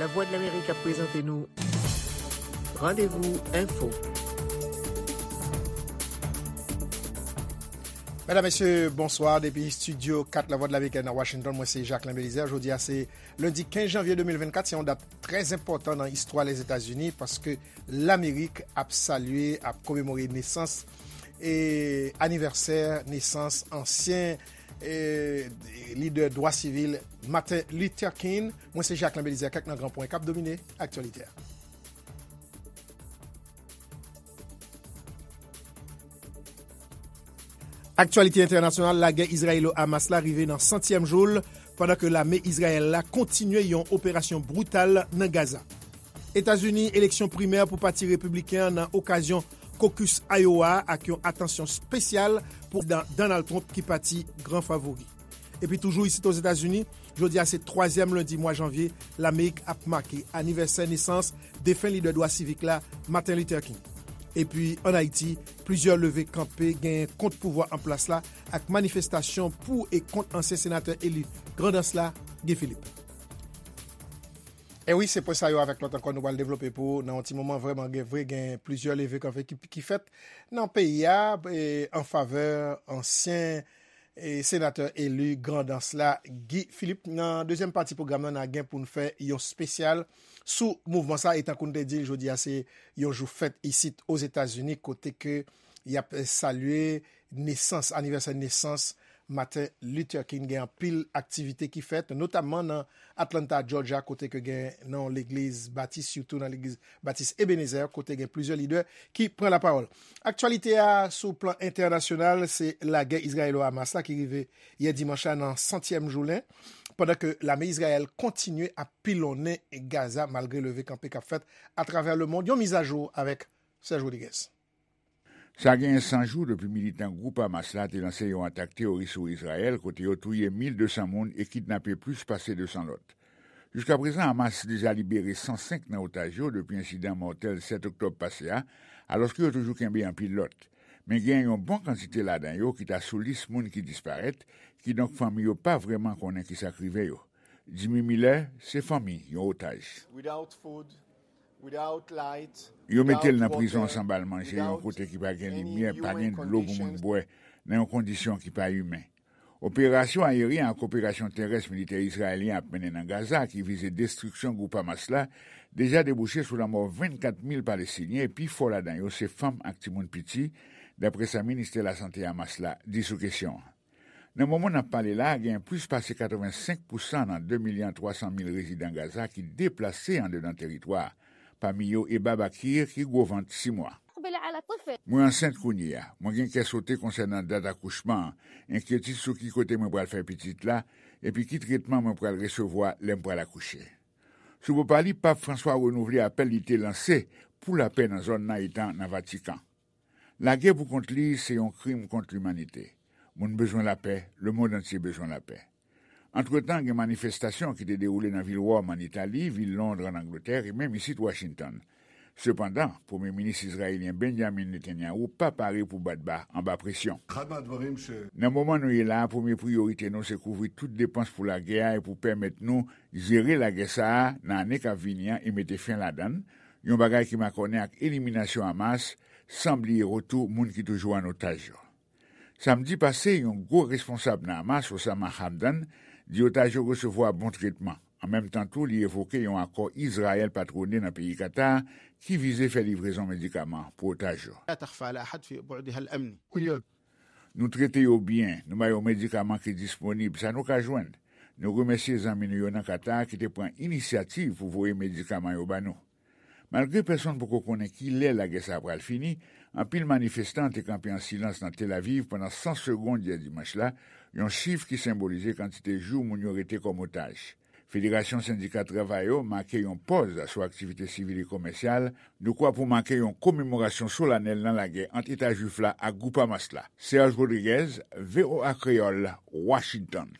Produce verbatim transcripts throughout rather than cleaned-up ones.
Lavwadlamerik ap prezante nou Randevou Enfo. Medam, mesye, bonswa. Depi estidyo kat Lavwadlamerik nan Washington, mwen se Jacquelin Belizaire. Jodi a se lendi kenz janvye de mil vennkat. Se yon dat trè enpòtan nan istwa Lèzetazini paske Lamerik ap salye, ap komemore nesans e anivèsè nesans ansyen e lidè dwa sivil Martin Luther King. Mwen se Jacquelin Belizaire. Kèk nan gran pwen k ap domine aktyalite a. Aktyalite entènasyonal, lagè Izrayelo-Hamas la rive nan santyèm jou l, pandan ke lame Izrayèl la kontinye yon operasyon brital nan Gaza. Etazini, eleksyon primè pou Pati Repibliken an nan okazyon kokis Iowa a ak yon atansyon espesyal pou Prezidan Donald Trump ki pati gran favori. Epi toujou isit Ozetazini, jodi a se twazyèm lendi mwa janvye, Lamerik ap make anivèsè nesans defen lidè dwa sivik la, Martin Luther King. Epi ann Ayiti, plizyè leve kanpe genyen kont pouvwa an plas la ak manifestasyon pou e kont ansyen senatè eli Grandans la, Guy Philippe. E wi, se pwen sa yo avèk lòt ankò nou pral devlope pou ou nan yon ti moman. Vrèman, gen vre, gen plizyè leve kanpe ki, ki fèt nan peyi a, e, an favè ansyen, e, senatè eli Grandans la, Guy Philippe. Nan dezyèm pati pwogram nan, n a gen pou n fè yon espesyal sou mouvman sa, e tankou n te di l, jodi a se yon jou fèt isit Ozetazini, kote ke y ap salye nesans, anivèsè nesans Martin Luther King. Gen anpil aktivite ki fèt, notamman nan Atlanta, Georgia, kote ke gen nan yon legliz batis, sitou nan legliz batis Ebenezer, kote gen plizyè lidè ki pran lapawòl. Aktyalite a sou plan entènasyonal, se lagè Izrayelo-Hamas la ki rive yè dimanch la nan santyèm jounen, pandan ke lame Izrayèl kontinye ap pilonnen Gaza malgre leve kanpe k ap fèt atravè lemonn. Yon mizajou avèk Serge Rodriguez. Sa genyen san jou depi militan gwoup Hamas la te lanse yon atak teworis sou Izrayèl, kote yo touye mil de san moun e kidnape plis pase de san lòt. Jiskaprezan, Hamas deja libere san senk nan otaj yo depi ensidan mòtèl sèt oktòb pase a, alòske yo toujou kenbe anpil lòt. Men gen yon bon kantite ladan yo ki ta sou lis moun ki disparèt, kidonk fanmi yo pa vrèman konnen kisa k rive yo. Jimmy Miller se fanmi yon otaj. Yo mete l nan prizon san ba l manje, yon kote ki pa gen limyè, pa gen dlo pou moun bwè, nan yon kondisyon ki pa imen. Operasyon ayeryen ak operasyon terès militè izrayelyen ap mennen nan Gaza, ki vize destriksyon gwoup Hamas la, deja debouche sou lanmò vennkat mil Palestinyen, e pifò ladan yo se fanm ak timoun piti, daprè sa ministè lasante Hamas la di sou kesyon an. Nan moman n ap pale la a, gen plis pase katrevensenk pousan nan de milyon twa san mil rezidan Gaza ki deplase andedan teritwa a, pami yo Eba Bakir ki gwo vant sis mwa. Mwen ansent kounye a. Mwen gen kè sote konsènan dat akouchman an, enkyetid sou ki kote mwen pral fè pitit la, epi ki tretman mwen pral resevwa lè m pral akouche. Sou bò pa li, Pap Franswa renouvle apèl li te lanse pou lapè nan zòn nan, etan nan Vatikan. Lagè pou kont li se yon krim kont limanite. Moun bezwen lapè, lemonn antye bezwen lapè. Antretan, gen manifestasyon ki te dewoule nan vil Wòm, ann Itali, vil Lond, ann Angletè, e menm isit Washington. Sepandan, Premye Minis izrayelyen Benjamin Netanyahu pa pare pou bat ba anba presyon. Nan moman nou ye la a, premye priyorite nou se kouvri tout depans pou lagè a e pou pèmèt nou jere lagè sa a nan ane k ap vini an e mete fen ladan l, yon bagay ki makònen ak eliminasyon Hamas, san bliye retou moun ki toujou an otaj yo. Samdi pase, yon gwo responsab nan Hamas, Osama Hamdan, di otaj yo resevwa bon tretman. An menm tan tou, li evoke yon akò Izrayèl patwone nan peyi Katar ki vize fè livrezon medikaman pou otaj yo. Nou trete yo byen, nou ba yo medikaman ki disponib, sa nou ka jwenn. Nou remèsye zanmi nou yo nan Katar ki te pran inisyativ pou voye medikaman yo ba nou. Malgre pèsonn poko konnen kilè lagè sa a pral fini, anpil manifestan te kanpe an silans nan Tel Aviv pandan san segonn yè dimanch la, yon chif ki senbolize kantite jou moun yo rete kòm otaj. Federasyon Sendika Travayè yo make yon pòz sou aktivite sivil e komèsyal, dekwa pou make yon komemorasyon solanèl nan lagè ant Eta Jwif la ak gwoup Hamas la. Serge Rodriguez, V O A Kreyòl, Washington.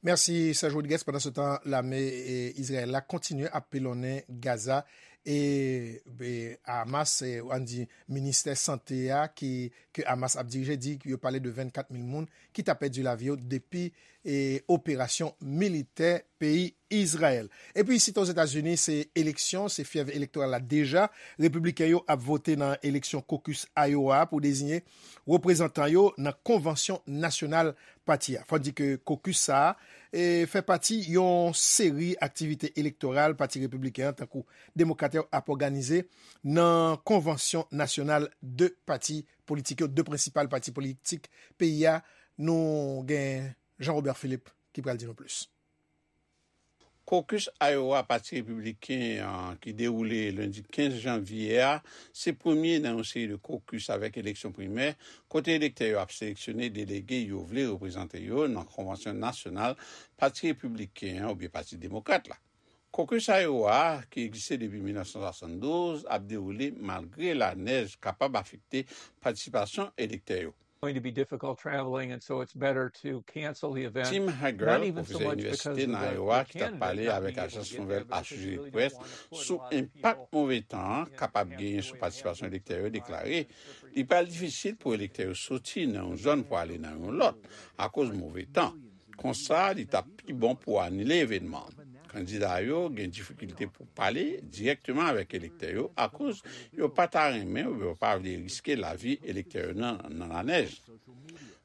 Mèsi, Serge Rodriguez. Pandan se tan, lame e, Izrayèl la kontinye ap pilonnen Gaza. E, e Hamas, e, ann di, ministè sante a, ki, ke Hamas ap dirije, di yo pale de vennkat mil moun ki ta pèdi lavi yo depi e, operasyon militè peyi Izrayèl. Epi, isit Ozetazini, se eleksyon, se fyèv elektoral la deja. Repibliken yo ap vote nan eleksyon caucus Iowa pou deziye reprezantan yo nan konvansyon nasyonal pati a. Fò n di ke caucus sa a e, fè pati yon seri aktivite elektoral pati repibliken an, tankou demokrat yo ap òganize nan konvansyon nasyonal de pati politik yo, de prensipal pati politik peyi a. Nou gen Jean Robert Philippe ki pral di nou plis. Caucus Iowa Pati Repibliken an, ki dewoule lendi kenz janvye a, se premye nan yon seri de caucus avèk eleksyon primè, kote elektè yo ap seleksyone delege yo vle reprezante yo nan konvansyon nasyonal Pati Repibliken an oubyen Pati Demokrat la. Caucus Iowa a, ki egziste depi mil nèf san swasanndouz, ap dewoule malgre lanèj kapab afekte patisipasyon elektè yo. Going to be difficult traveling, and so it's better to cancel the event. Tim Hagel, pwofesè inivèsite nan Iowa, ki t ap pale avèk ajans nouvèl Associated Press sou enpak move tan an kapab genyen sou patisipasyon elektè yo, deklare li pral difisil pou elektè yo soti nan yon zòn pou ale nan yon lòt akoz move tan. Konsa, li t ap pi bon pou anile evènman an. Kandida yo gen difikilte pou pale dirèkteman avèk elektè yo akoz yo pa ta renmen oubyen yo pa vle riske lavi elektè yo nan, nan lanèj.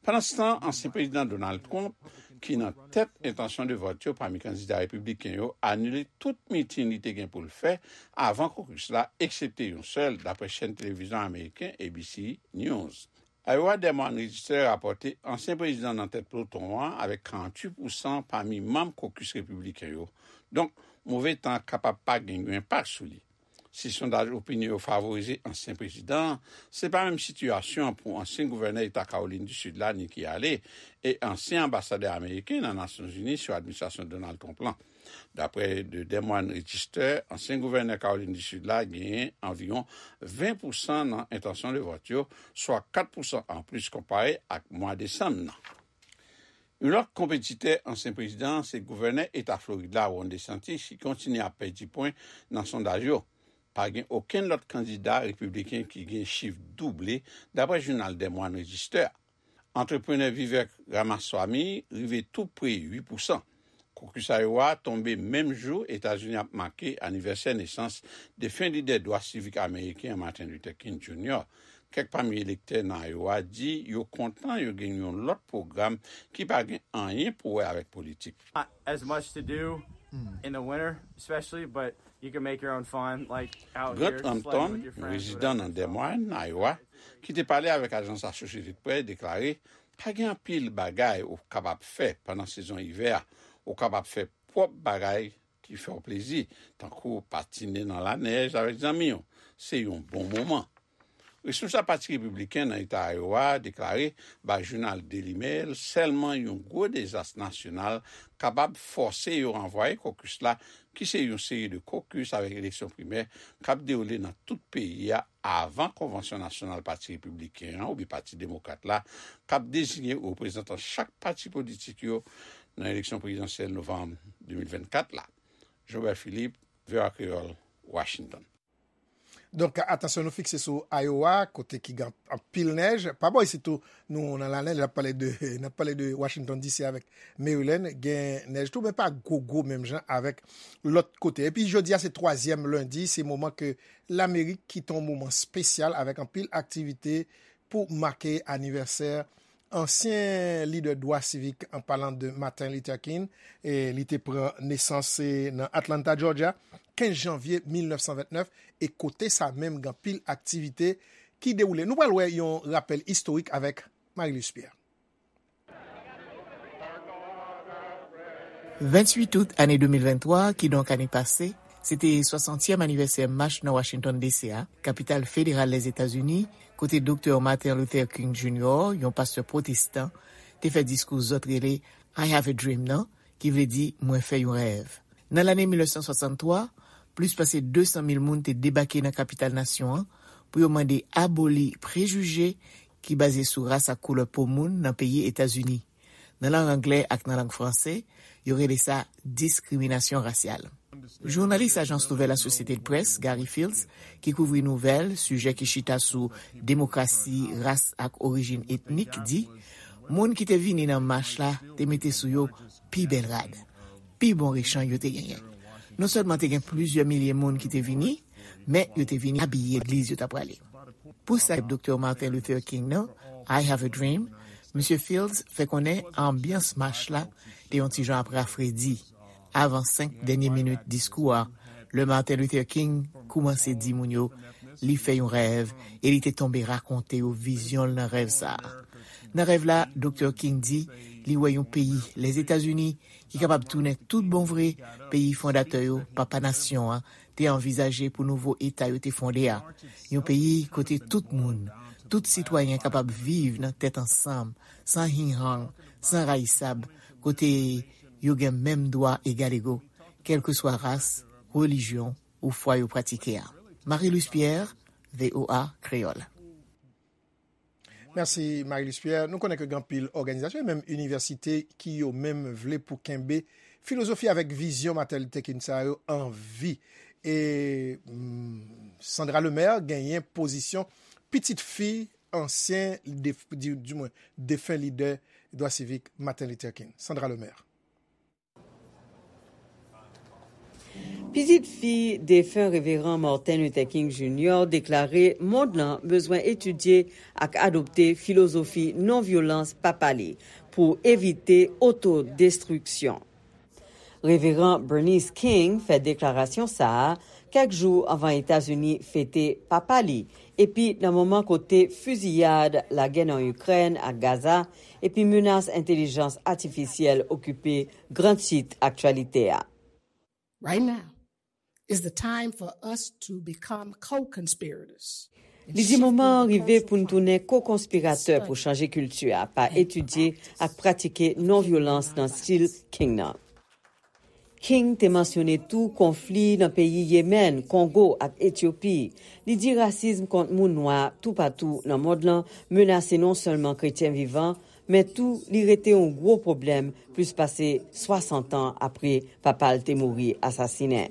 Pandanstan, ansyen prezidan Donald Trump, ki nan tèt entansyon de vòt yo pami kandida repibliken yo, anile tout mitin li te gen pou l fè avan caucus la, eksepte yon sèl, dapre chèn televizyon ameriken A B C News. Iowa Des Moines Register rapòte ansyen prezidan nan tèt ploton an avèk karanntuit pousan pami manm caucus repibliken yo. Donk, move tan an kapab pa gen yon enpak sou li. Si sondaj opinyon yo favorize ansyen prezidan an, se pa menm sitiyasyon an pou ansyen gouvènè eta Kawolin di Sid la, Nikki Haley, e ansyen anbasadè ameriken nan Nasyonzini sou administrasyon Donald Trump lan. Dapre The Des Moines Register, ansyen gouvènè Kawolin di Sid la genyen anviwon ven pousan nan entansyon de vòt yo, swa kat pousan anplis konpare ak mwa desanm nan. Yon lòt konpetitè ansyen prezidan an se gouvènè eta Florid la, Ron DeSantis, ki kontinye ap pèdi pwen nan sondaj yo. Pa gen okenn lòt kandida repibliken ki gen chif double, dapre jounal Des Moines Register a. Antreprenè Vivek Ramaswamy rive tou pre uit pousan. Caucus Iowa tonbe menm jou Etazini ap make anivèsè nesans defen lidè dwa sivik ameriken an, Martin Luther King Junior. Kèk pami elektè nan Iowa di yo kontan yo gen yon lòt pwogram ki pa gen anyen pou wè avèk politik. Not as much to do in the winter, especially, but you can make your own fun, like out here, sledding with your friends, whatever. Grant Hampton, yon rezidan nan Des Moines, Iowa, ki te pale avèk ajans Associated Press, deklare, pa gen anpil bagay ou kapab fè pandan sezon ivè a. Ou kapab fè pwòp bagay ki fè w plezi, tankou patine nan lanèj avèk zanmi w. Se yon bon moman. Responsab Pati Repibliken nan eta Iowa deklare bay jounal Daily Mail sèlman yon gwo dezas nasyonal kapab fòse yo ranvwaye caucus la, ki se yon seri de caucus avèk eleksyon primè k ap dewoule nan tout peyi a avan konvansyon nasyonal Pati Repibliken an oubyen Pati Demokrat la, k ap deziye reprezantan chak pati politik yo nan eleksyon prezidansyèl novanm de mil vennkat la. Jobert Philippe, V O A Kreyòl, Washington. Donk, atansyon nou fikse sou Iowa, kote ki gen anpil nèj. Pa bò isit tou, nou nan lanèj, n ap pale de, n ap pale de Washington D C avèk Maryland, gen nèj tou, men pa gwo, gwo menm jan avèk lòt kote. Epi jodi a, se twazyèm lendi, se moman ke Lamerik kite yon moman espesyal avèk anpil aktivite pou make anivèsè ansyen lidè dwa sivik, an palan de Martin Luther King, e li te pran nesans, e, nan Atlanta, Georgia, kenz janvye mil nèf san vennèf, e kote sa menm gen anpil aktivite ki dewoule. Nou pral wè yon rapèl istorik avèk Marie-Luce Pierre. Venntuit out ane de mil venntwa, kidonk ane pase, se te swasantyèm anivèsè mach nan Washington D C a, kapital federal Lèzetazini, kote Doktè Martin Luther King Junior, yon pastè pwotestan, te fè diskou zòt rele I Have a Dream nan, ki vle di Mwen fè yon rèv. Nan lane mil nèf san swasanntwa, plis pase de san mil moun te debake nan kapital nasyon an pou yo mande aboli prejije ki baze sou ras ak koulè po moun nan peyi Etazini. Nan lang anglè ak nan lang franse, yo rele sa diskriminasyon rasyal. Jounalis Ajans Nouvèl Associated Press, Gary Fields, ki kouvri nouvèl, sijè ki chita sou demokrasi, ras ak orijin etnik, di, moun ki te vini nan mach la te mete sou yo pi bèl rad, pi bon rechanj yo te genyen. Non sèlman te gen plizyè milye moun ki te vini, men yo te vini abiye legliz yo t ap prale. Pou sa Doktè Martin Luther King nan, I Have a Dream, Misye Fields fè konnen anbyans mach la te yon ti jan ap rafredi. Avan senk dènye minit diskou a, lè Martin Luther King koumanse di moun yo li fè yon rèv e li te tonbe rakonte yo vizyon l nan rèv sa a. Nan rèv la, Doktè King di li wè yon peyi, Lèzetazini, ki kapab tounen tout bon vre peyi fondatè yo, papa nasyon an, te anvizaje pou nouvo eta yo te fonde a. Yon peyi kote tout moun, tout sitwayen kapab viv nan tèt ansanm, san hinghang, san rayisab, kote yo gen menm dwa egalego, kèlkeswa ras, relijyon ou fwa yo pratike a. Marie Luce Pierre, V O A Kreyòl. Mèsi, Marie Luce Pierre. Nou konnen ke gen anpil òganizasyon e menm inivèsite ki yo menm vle pou kenbe filozofi avèk vizyon Martin Luther King sa yo an vi. E mm, Sandra Lemaire genyen pozisyon pitit fi ansyen, dif, di, di mwen, defen lidè dwa sivik Martin Luther King. Sandra Lemaire. Pitit fi defen Reveran Martin Luther King Junior deklare mond lan bezwen etidye ak adopte filozofi non-vyolans papa li pou evite otodestriksyon. Reveran Bernice King fè deklarasyon sa a kèk jou anvan Etazini fete papa li, epi nan moman kote fiziyad, lagè nan Ikrèn ak Gaza, epi menas entèlijans atifisyèl okipe gran tit aktyalite a. Right now is the time for us to become co-conspirators. Li di moman an rive pou n tounen ko-konspiratè pou chanje kilti a pa etidye ak pratike non-vyolans nan stil King nan. King te mansyone tou konfli nan peyi Yemen, Kongo ak Etyopi. Li di rasism kont moun nwa toupatou nan mond lan menase non sèlman kretyen vivan, men tou li rete yon gwo pwoblèm plis pase swasant an apre papa l te mouri asasinen.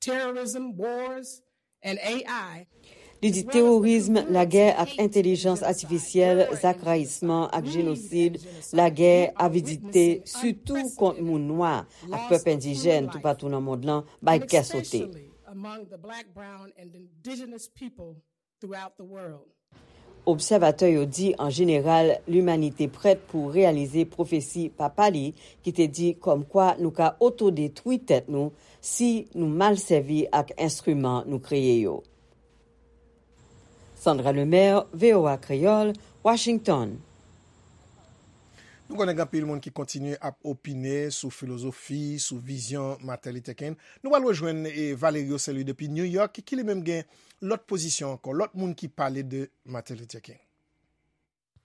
Terrorism, wars, and A I. Li di teworism, lagè ak entèlijans atifisyèl, zak rayisman ak jenosid, lagè, avidite, sitou kont moun nwa ak pèp endijèn toupatou nan mond lan, bay kè sote. Among the black, brown, and indigenous people throughout the world. Obsèvatè yo di an jeneral limanite prèt pou reyalize pwofesi papa li ki te di kòmkwa nou ka otodetwi tèt nou si nou mal sèvi ak enstriman nou kreye yo. Sandra Lemaire, V O A Kreyòl, Washington. Nou konnen gen anpil moun ki kontinye ap opine sou filozofi, sou vizyon Martin Luther King. Nou pral rejwenn Valerio Saint-Louis depi New York ki li menm gen lòt pozisyon ankò, lòt moun ki pale de Martin Luther King.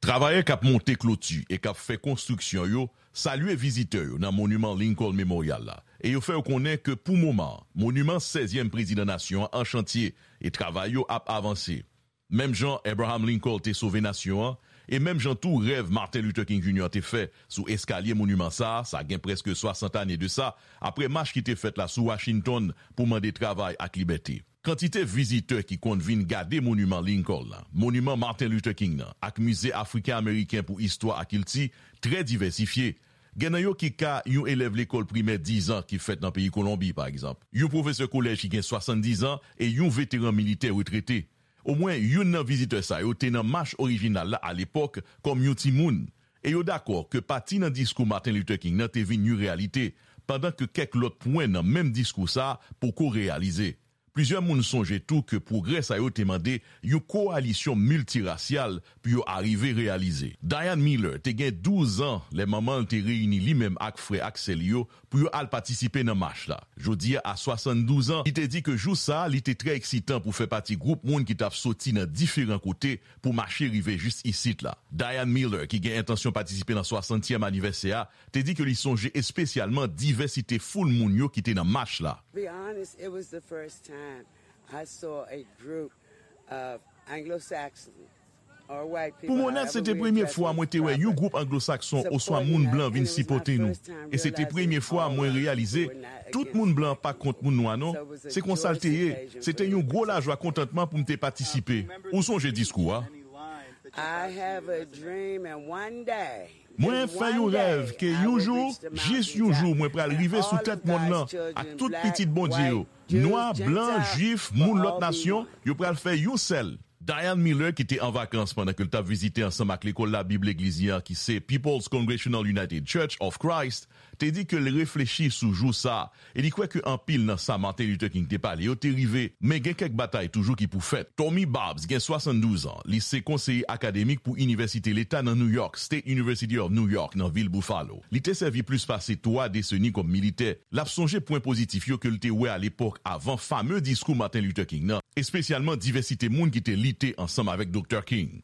Travayè k ap monte kloti e k ap fè konstriksyon yo salye vizitè yo nan moniman Lincoln Memorial la e yo fè yo konnen ke pou moman an, moniman sèzyèm prezidan nasyon an an chantye e travay yo ap avanse. Menm jan Abraham Lincoln te sove nasyon an, e menm jan tou rèv Martin Luther King Junior te fè sou eskalye moniman sa a, sa gen prèske swasant ane de sa, apre mach ki te fèt la sou Washington pou mande travay ak libète. Kantite vizitè ki konn vin gade moniman Lincoln la, moniman Martin Luther King nan, ak Mize Afriken Ameriken pou Istwa ak Kilti trè divèsifye. Gen nan yo ki ka yon elèv lekòl primè diz an ki fèt nan peyi Kolonbi, pa egzanp, yon pwofesè kolèj ki gen swasanndizan e yon veteran militè retrete. Omwen youn nan vizitè sa yo te nan mach orijinal la alepòk kòm yon timoun, e yo dakò ke pati nan diskou Martin Luther King nan te vin yon reyalite, pandan ke kèk lòt pwen nan menm diskou sa a poko reyalize. Plizyè moun sonje tou ke pwogrè sa yo te mande yon kowalisyon miltirasyal pou yo arive reyalize. Diane Miller te gen douz an lè manman l te reyini li menm ak frè ak sè li yo pou yo al patisipe nan mach la. Jodi a, a swasanndouz an, li te di ke jou sa a, li te trè eksitan pou fè pati gwoup moun ki t ap soti nan diferan kote pou mache rive jis isit la. Diane Miller, ki gen entansyon patisipe nan swasantyèm anivèsè a, te di ke li sonje espesyalman divèsite foul moun yo ki te nan mach la. Be honest, it was the first time I saw a group of Anglo-Saxon Pou m onèt, se te premye fwa mwen te wè yon gwoup anglo-sakson oswa moun blan vin sipòte nou. E se te premye fwa mwen reyalize tout moun blan pa kont moun nwa non. Se konsa l te ye. Se te yon gwo lajwa kontantman pou m te patisipe. Ou sonje diskou a? I have a dream and one day, Mwen fè yon rèv ke yon jou, jis yon jou, mwen pral rive sou tèt mond lan ak tout pitit Bondye yo. Nwa, blan, jwif, moun lòt nasyon, yo pral fè yon sèl. Diane Miller, ki te an vakans pandan ke l t ap vizite ansanm ak Lekòl Labib Legliz li an, ki se People's Congregational United Church of Christ, te di ke l reflechi sou jou sa a e li kwè ke anpil nan sa Martin Luther King te pale yo te rive, men gen kèk batay toujou ki pou fèt. Tommy Babs gen swasanndouz an, li se konseye akademik pou Inivèsite Leta nan New York, State University of New York, nan vil Buffalo. Li te sèvi plis pase twa deseni kòm militè. L ap sonje pwen pozitif yo ke l te wè alepòk avan fame diskou Martin Luther King nan, espesyalman divèsite moun ki te lite ansanm avèk Doktè King.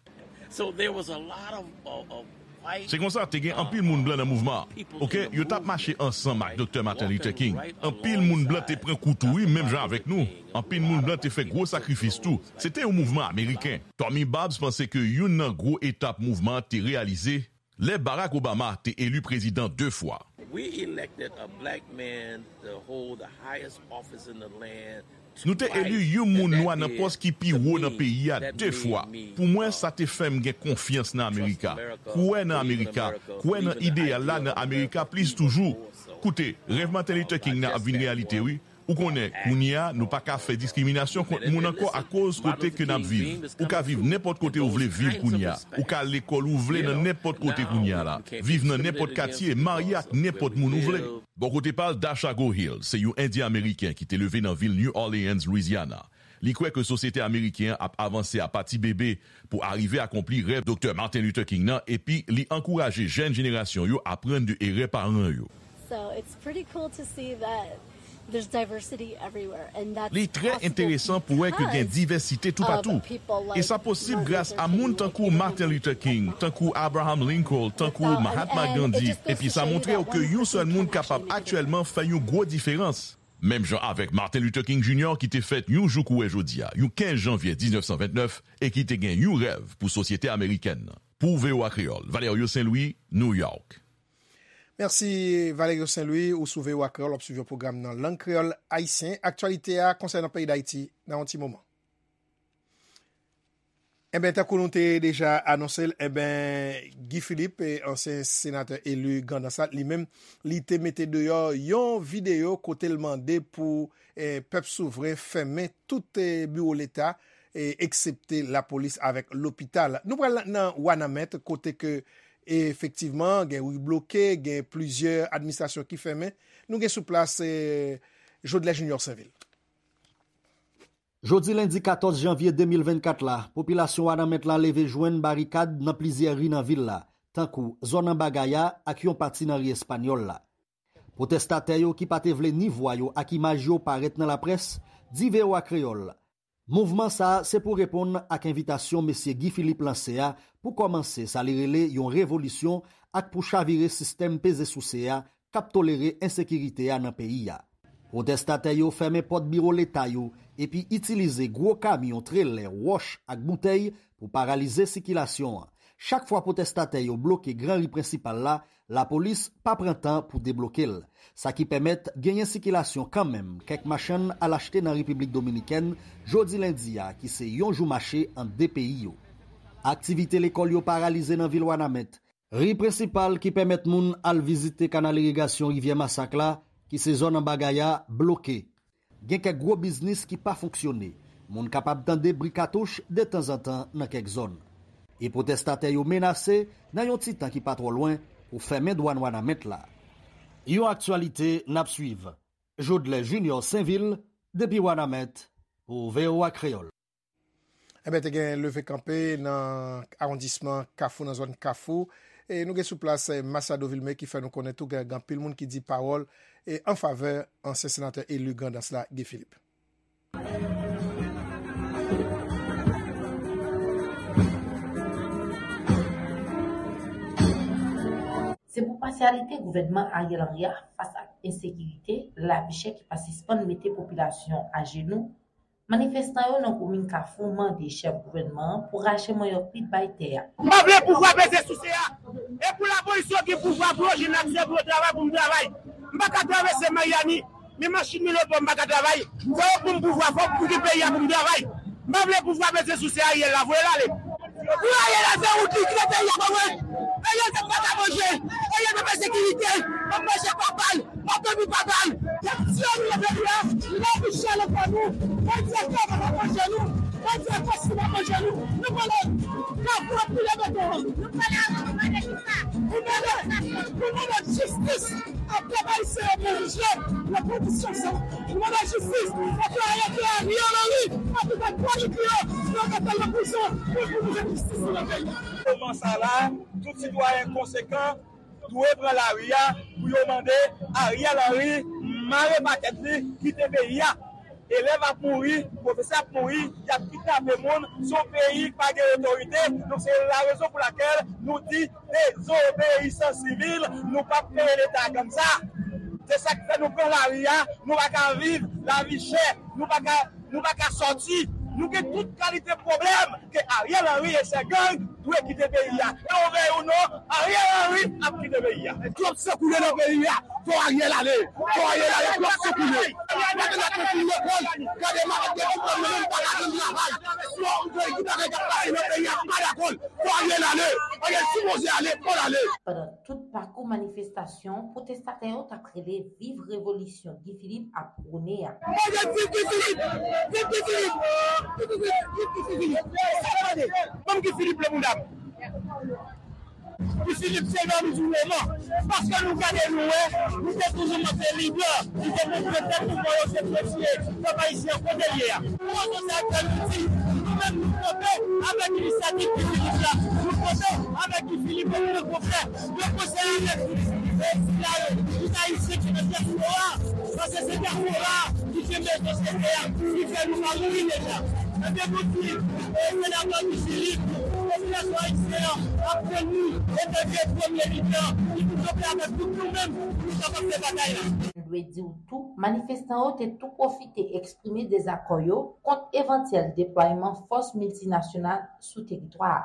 So there was a lot of, of, of white, Se konsa, te gen anpil moun blan nan mouvman an. Oke, yo t ap mache ansanm ak Doktè Martin Luther King. Anpil moun blan te pran kou tou, wi, menm jan avèk nou. Anpil moun blan te fè gwo sakrifis tou. Se te yon mouvman ameriken. Tommy Babs panse ke youn nan gwo etap mouvman an te reyalize lè Barack Obama te eli prezidan de fwa. We elected a black man to hold the highest office in the land. Nou te eli yon moun nwa nan pòs ki pi wo nan peyi a de fwa. Pou mwen, sa te fè m gen konfyans nan Amerika, kwè nan Amerika, kwè nan ideyal la nan Amerika plis toujou. Koute, rèv Martin Luther King nan ap vin reyalite, wi. Ou konnen, kounye a, nou pa ka fè diskriminasyon kont moun ankò akoz kote ke n ap viv. Ou ka viv nenpòt kote ou vle viv kounye a. Ou ka al lekòl ou vle nan nenpòt kote kounye a la. Viv nan nenpòt katye, marye ak nenpòt moun ou vle. Bò kote pa l, Dasha Gohill se yon Endyen Ameriken ki te leve nan vil New Orleans, Louisiana. Li kwè ke sosyete ameriken an ap avanse a pa ti bebe pou arive akonpli rèv Doktè Martin Luther King nan, epi li ankouraje jèn jenerasyon yo aprann de erè paran yo. So it's pretty cool to see that there's diversity everywhere, and that's Li trè enteresan pou wè ke gen divèsite toupatou. E sa posib gras a moun tankou Martin Luther King, tankou Abraham Lincoln, tankou Mahatma Gandhi. Epi sa montre w ke yon sèl moun kapab aktyèlman fè yon gwo diferans. Menm jan avèk Martin Luther King Junior ki te fèt yon jou kou wè jodi a, yon kenz janvye diznèf san ventnèf, e ki te gen yon rèv pou sosyete amerikèn nan. Pou V O A Kreyòl, Valerio Saint Louis, New York. Mèsi, Valerio Saint Louis, ou sou V O A Kreyòl, w ap swiv yon pwogram nan lang kreyòl ayisyen. Aktyalite a konsènan peyi Dayiti nan yon ti moman. Enben, tankou nou te deja anonse l, enben, Guy Philippe, eh, ansyen senatè eli Grandans la, li menm, li te mete deyò yon videyo kote l mande pou, eh, pèp souvren fèmen tout, eh, biwo Leta, eh, eksepte lapolis avèk lopital. Nou pral nan Wanament, kote ke, efektivman, gen ri bloke, gen plizyè administrasyon ki fèmen. Nou gen sou plas, eh, Jodlè Junior Sainvil. Jodi lendi katòz janvye de mil vennkat la, popilasyon Wanament la leve jwenn barikad nan plizyè ri nan vil la, tankou zòn Anba Gaya ak yon pati nan ri Espanyòl la. Pwotèstatè yo ki pa te vle ni vwa yo ak imaj yo parèt nan laprès, di V O A Kreyòl, mouvman sa a se pou reponn ak envitasyon mesye Guy Philippe lanse a pou kòmanse sa li rele yon revolisyon ak pou chavire sistèm peze souse a k ap tolere ensekirite a nan peyi a. Pwotèstatè yo fèmen pòt biwo Leta yo epi itilize gwo kamyon, trelè, wòch ak boutèy pou paralize sikilasyon an. Chak fwa pwotèstatè yo bloke gran ri prensipal la, lapolis pa pran tan pou debloke l. Sa ki pèmèt genyen sikilasyon kanmenm kèk machann al achte nan Repiblik Dominikèn jodi lendi a, ki se yon jou mache ant de peyi yo. Aktivite lekòl yo paralize nan vil Wanament. Ri prensipal ki pèmèt moun al vizite kanal irigasyon Rivyè Masak la, ki se zòn Anba Gaya, bloke. Gen kèk gwo biznis ki pa fonksyone. Moun kapab tande bri katouch detanzantan nan kèk zòn. E pwotèstatè yo menase, nan yon ti tan ki pa twò lwen, pou fèmen dwàn Wanament la. Yon aktyalite n ap swiv. Jodlè Junior Sainvil, depi Wanament, pou V O A Kreyòl. Enben, te gen leve kanpe nan awondisman Kafou, nan zòn Kafou. E nou gen sou plas, eh, Machado Vilmé ki fè nou konnen tou gen, gen anpil moun ki di pawòl, eh, an favè ansyen senatè eli Grandans la, Guy Philippe. Se pou pasyalite gouvènman Ariel Henry a fas ak ensekirite, lavi chè ki pa sispann mete popilasyon ajenou, Manifestan yo nan komin Kafou mande chèf gouvènman an pou rache manyòk li bay tè a. M pa vle pouvwa peze souse a. E pou lapolis yo gen pouvwa pou yo jwenn aksè pou yo travay, pou m travay. M pa ka travèse Maryani, men machin mi lòt bò m pa ka travay. Fò yo pou m pouvwa, fò m gen peyi a pou m travay. M pa vle pouvwa peze souse Ariel la, voye l ale. Pou Ariel al fè wout li, kite peyi a pa wè. Ariel se pa ka manje, Ariel pa pa sekirite, pa manje pa bal, pa dòmi pa bal. Y ap tiye nou nan peyi a, nou pa pou chale kò nou. Bandi a kò pa manje nou, bandi a kò si pa manje nou. Nou pale, Kafou ap pile beton. Nou pale avè nou mande kisa? Nou mande, nou mande jistis. Ak pèp ayisyen yo pou jije nan kondisyon sa. Nou mande jistis, fòk yo arete Ariel Henry, fòk yo fè pwojekte yo, fòk yo mete l nan prizon, pou pou nou jwenn jistis nou nan peyi a. Moman sa la, tout sitwayen konsekan dwe pran lari a pou yo mande Ariel Henry mare pakèt li, kite peyi a. Elèv ap mouri, pwofesè ap mouri, y ap kidnape moun, se yon peyi ki pa gen otorite. Donk, se la rezon pou lakèl nou di dezobeyisans sivil, nou p ap peye Leta kòmsa. Se sa k fè nou pran lari a, nou pa ka viv, lavi chè, nou pa ka, nou pa ka sòti. Nou gen tout kalite pwoblèm ke Ariel Henry e sè gang dwe kite peyi a. E ou vle ou non, Ariel Henry ap kite peyi a. Twòp san koule nan peyi a. Fò Ariel ale. Fò Ariel ale. Twòp san koule. Gade la konfin lekòl. Gade malad de diplòm yo menm pa ka jwenn travay. Fò gade k ap pase nan peyi a, pa dakò. Fò Ariel ale. Ariel sipoze ale. Fò l ale. Pandan tout pakou manifestasyon, pwotestatè yo t ap rele Viv revolisyon Guy Philippe ap pwone a. Mwen di viv Guy Philippe! Viv Guy Philippe! Viv Guy Philippe! Viv Guy Philippe! Ban m Guy Philippe nan bounda m! Guy Philippe se nonm di moman. Paske nou gade nou wè, nou te toujou montre lidè, nou te montre tèt nou, bon, yo se premye pèp ayisyen kote l ye a. Pou rezon sa k fè nou di, nou menm nou kanpe avèk inisyativ Guy Philippe la. Nou kanpe avèk Guy Philippe e nou konfè. Yo konsèy avèk tout, e, sila yo, tout ayisyen ki nan dyaspora, paske se dyaspora ki kenbe sosyete a, ki fè nou pa mouri deja. Ebyen, nou di, e, senatè Guy Philippe, popilasyon ayisyen an ap tann nou, e te vye premye lidè, ki pou kanpe avèk tout nou menm, pou nou kapab fè batay la. Nou dwe di w tou, manifestan yo te tou pwofite eksprime dezakò yo kont evantyèl deplwayman fòs miltinasyonal sou teritwa a.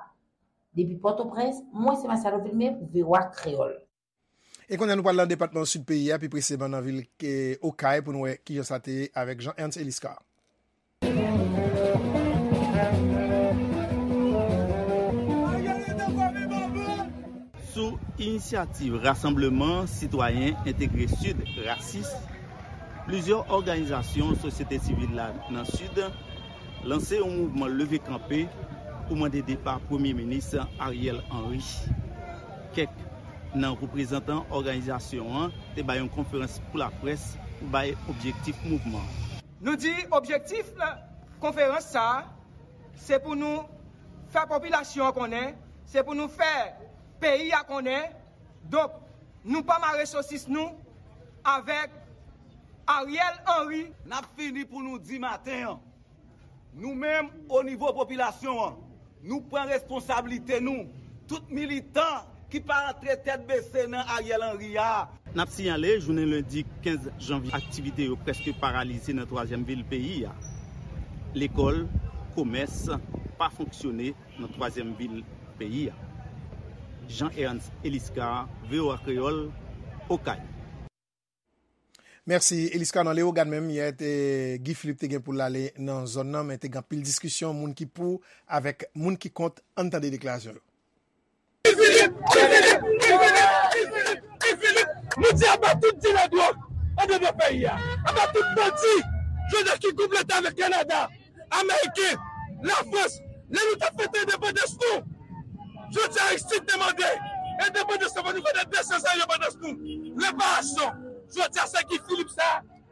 Depi Pòtoprens, mwen se Marcelo Vilmé pou V O A Kreyòl. E kounye a, nou pral nan depatman sid peyi a, pi presizeman nan vil, eh, Okay, pou nou wè kijan sa te ye avèk Jean Ernst Eliscar. Sou inisyativ Rasanbleman Sitwayen Entegre Sid, rasis, plizyè òganizasyon sosyete sivil la nan Sid lanse yon mouvman leve kanpe pou mande depa Premye Minis Ariel Henry. Kèk nan reprezantan òganizasyon an te bay yon konferans pou laprès pou bay objektif mouvman an. Nou di objektif konferans sa a, se pou nou fè popilasyon an konnen, se pou nou fè peyi a konnen. Donk, nou pa mare sosis nou avèk Ariel Henry. N ap fini pou nou di maten an. Nou menm, o nivo popilasyon an, nou pran responsablite nou. Tout militan ki pa antre tèt bese nan Ariel Henry a. N ap siyale, jounen lendi kenz janvye, aktivite yo prèske paralize nan twazyèm vil peyi a. Lekòl, komès pa fonksyone nan twazyèm vil peyi a. Jean Ernst Eliscar, V O A Kreyòl, Okay. Mèsi, Eliscar. Nan Leyogàn menm, yè, te, Guy Philippe te gen pou l ale nan zòn nan, men te gen anpil diskisyon, moun ki pou avèk moun ki kont. Ann tande deklarasyon yo. Guy Philippe! Guy Philippe! Guy Philippe! Guy Philippe! Nou di aba tout dilè dwòg anndan peyi a. Aba tout bandi, jodi a ki konplote avèk Kanada, Ameriken, Lafrans, lè nou t ap fete endepandans nou. Jodi a, Aristide te mande endepandans nou, fò nou fete de san zan endepandans nou. Reparasyon. Jodi a, se Guy Philippe sa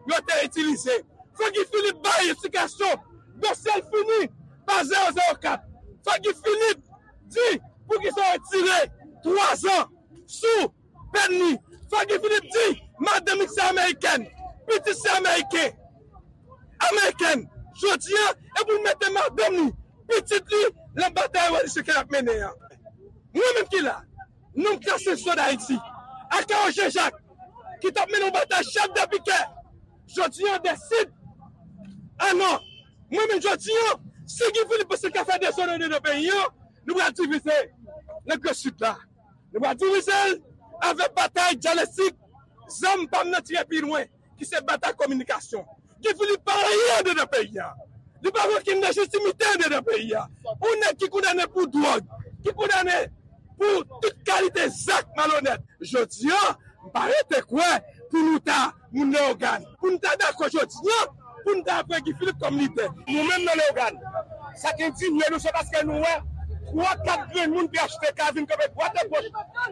yo te itilize. Fò Guy Philippe bay eksplikasyon. Dosye l fini pa zewo zewo kat. Fò Guy Philippe di poukisa yo retire twa zan sou pèn li. Fò Guy Philippe di madanm li se amerikèn, pitit se ameriken, amerikèn. Jodi a, e pou l mete madanm li, pitit li, nan batay revolisyon ke l ap mennen an. Mwen menm ki la, nonm klase swa Dayiti, Akawo Jean Jacques, ki t ap mennen yon batay chèf de pikè, jodi a, deside, a non, Mwen menm jodi an, si Guy Philippe panse l ka fè dezòd andedan peyi an, nou pral divize nan Gran Sid la. Nou pral divize l avèk batay dyalektik, zam pa m nan tire pi lwen, ki se batay kominikasyon. Guy Philippe pa anyen andedan peyi a. Li pa gen okenn lejitimite andedan peyi a. Yon nèg ki kondane pou dwòg, ki kondane pou tout kalite zak malonèt. Jodi an, m pa rete kwè pou nou ta moun Leyogàn, pou nou ta dakò jodi an, pou nou ta pran Guy Philippe kòm lidè. Nou menm nan Leyogàn, sa k endinye nou, se paske nou wè twa, kat grenn moun P H T K vin kanpe dwat e goch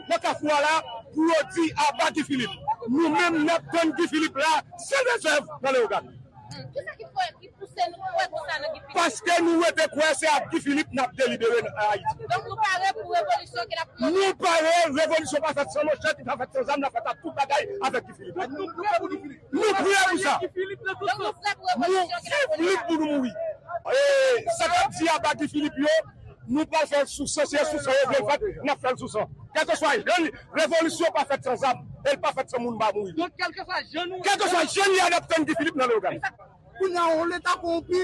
nan kafou a la pou yo di aba Guy Philippe. Nou menm, n ap tann Guy Philippe la, san rezèv nan Leyogàn. Kisa ki fè, ki pouse nou kwè konsa nan Guy Philippe? Paske nou rete kwè se ak Guy Philippe n ap delibere nan Ayiti. Donk nou pare pou revolisyon ke n ap mande? Nou pare, revolisyon pa fèt san manchèt, li pa fèt san zam, l ap fèt ak tout bagay avèk Guy Philippe. Nou prè pou Guy Philippe. Nou prè pou sa. Donk nou prè pou revolisyon ke n ap mande? Nou viv lit pou nou mouri. E sa k ap di aba Guy Philippe yo, nou pral fè l sou san, se sou san yo vle l fèt, n ap fè l sou san. Kèlkeswa jan li, revolisyon pa fèt san zam, e l pa fèt san moun pa mouri. Donk, kèlkeswa jan nou, kèlkeswa jan li a, n ap tann Guy Philippe nan Leyogàn. Kounye a, yon leta kowonpi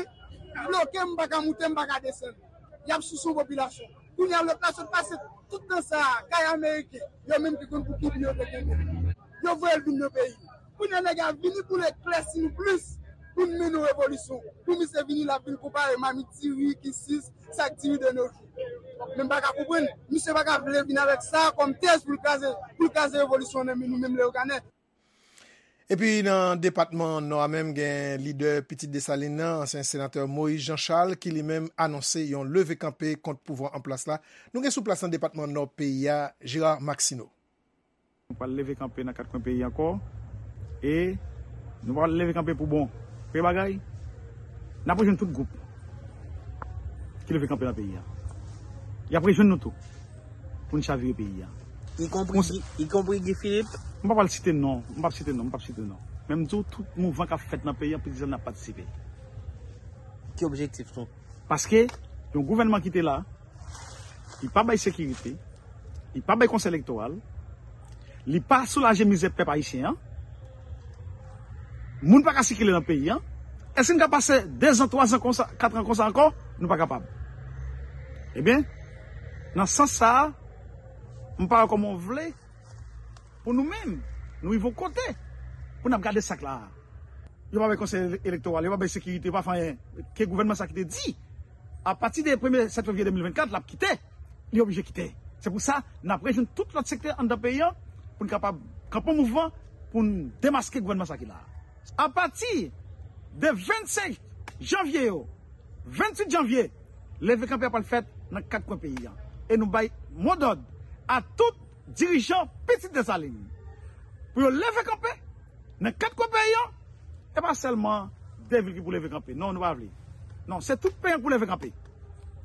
bloke m, m pa ka moute, m pa ka desann. Y ap souse yon popilasyon. Kounye a, lòt la sot pase tout tan sa a, kay ameriken, yo menm ki konn pou ki bi yo te kenbe. Yo voye l vin nan peyi. Kounye a, nèg la vini pou l eklèsi nou plis, pou n mennen yon revolisyon. Pou misye vini, l ap vin konpare mamit diri, kisis, sak diri de nos jours. Men m pa ka konprann. Misye pa ka vle vin avèk sa kòm tèz pou l kraze, pou l kraze revolisyon nan men nou menm Leyoganè. Epi nan depatman Nò a menm, gen lidè Pitit Desalin nan, ansyen senatè Moïse Jean Charles, ki li menm anonse yon leve kanpe kont pouvwa an plas la. Nou gen sou plas nan depatman Nò peyi a, Gérard Maxineau. Nou pral leve kanpe nan kat kwen peyi ankò. E nou pral leve kanpe pou bon. Premye bagay, n ap rejwenn tout gwoup ki leve kanpe nan peyi a. Y ap rejwenn nou tou pou n chavire peyi a. Ikonpri Guy, ikonpri Guy Philippe. M pa pral site non, m p ap site non, m p ap site non. Men m di w, tout mouvman k ap fèt nan peyi a, Pitit Desalin ap patisipe. Ki objektif nou? Paske yon gouvènman ki te la, li pa bay sekirite, li pa bay konsèy elektoral, li pa soulaje mizè pèp ayisyen an. Moun pa ka sikile nan peyi an. Èske n ka pase dezan, twazan konsa, katran konsa ankò? Nou pa kapab. Ebyen, nan sans sa a, m pa wè kòman w vle pou nou menm, nou rive yon kote pou n ap gade sa k la a. Yo pa bay konsèy ele-, elektoral, yo pa bay sekirite, yo pa fè anyen. Ke gouvènman sa ki te di, apati de premye sèt fevriye de mil vennkat, l ap kite, li oblije kite. Se pou sa, n ap rejwenn tout lòt sektè anndan peyi an pou n kapab kanpe yon mouvman pou n demaske gouvènman sa ki la a. Apati de vennsenk janvye yo, venntuit janvye, leve kanpe a pral fèt nan kat kwen peyi an. E nou bay modòd a tout dirijan Pitit Desalin pou yo leve kanpe nan kat kwen peyi an. E pa sèlman de vil ki pou leve kanpe. Non, nou pa vle. Non, se tout peyi an pou leve kanpe.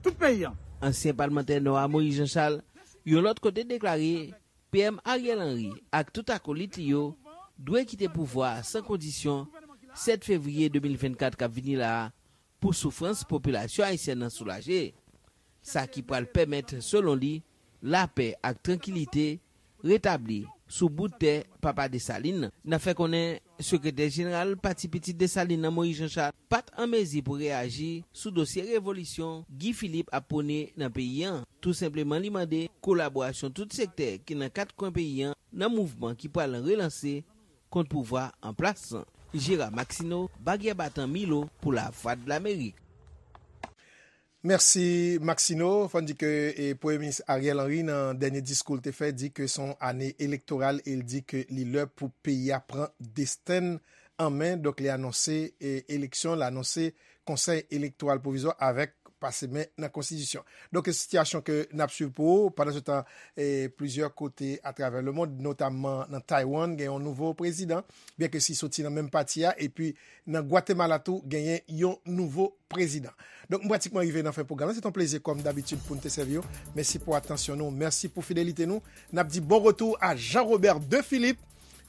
Tout peyi an. Ansyen palmantè Nò a Moïse Jean Charles, yon lòt kote, deklare P M Ariel Henry ak tout akolit li yo dwe kite pouvwa a san kondisyon sèt fevriye de mil vennkat k ap vini la a pou soufrans popilasyon ayisyèn nan soulaje. Sa ki pral pèmèt, selon li, lapè ak trankilite retabli sou bout tè Papa Desalin nan. N ap fè konnen sekretè jeneral Pati Pitit Desalin nan, Moïse Jean Charles, pa t an mezi pou reyaji sou dosye revolisyon Guy Philippe ap pwone nan peyi an. Tou senpleman, li mande kolaborasyon tout sektè ki nan kat kwen peyi an nan mouvman ki pral relanse kont pouvwa an plas lan. Gérard Maxineau, Bagyè Batan, Milo, pou Lavwadlamerik. Mèsi, Maxineau. Fò n di ke, e, Premye Minis Ariel Henry, nan dènye diskou l te fè, di ke se yon ane elektoral e l di ke li lè pou peyi a pran desten l an men. Donk, li anonse, e, eleksyon, l anonse Konsèy Elektoral Pwovizwa avèk pase men nan Konstitisyon. Donk, se sitiyasyon ke n ap swiv pou ou. Pandansetan, e, plizyè kote atravè lemonn, notamman nan Taiwan, gen yon nouvo prezidan, byenke si soti nan menm pati a, epi nan Gwatemala tou, genyen yon nouvo prezidan. Donk, m pratikman rive nan fen pwogram nan. Se te yon plezi, kòm dabitid, pou n te sèvi w. Mèsi pou atansyon nou. Mèsi pou fidelite nou. N ap di bon retou a Jean Robert de Philippe,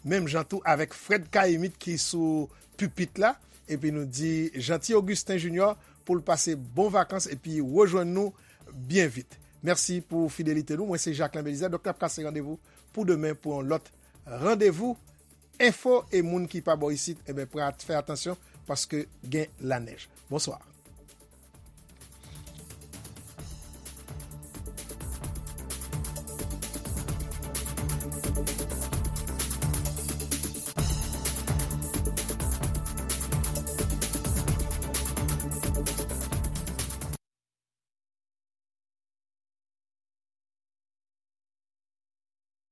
menm jan tou avèk Fred Caïmite ki sou pipit la. Epi nou di Jeanty Augustin Junior pou l pase bon vakans epi rejwenn nou byen vit. Mèsi pou fidelite nou. Mwen se Jacquelin Belizaire. Donk, n ap kase randevou pou demen pou yon lòt randevou enfo. E moun ki pa bò isit, enben, pran, fè atansyon paske gen lanèj. Bonswa.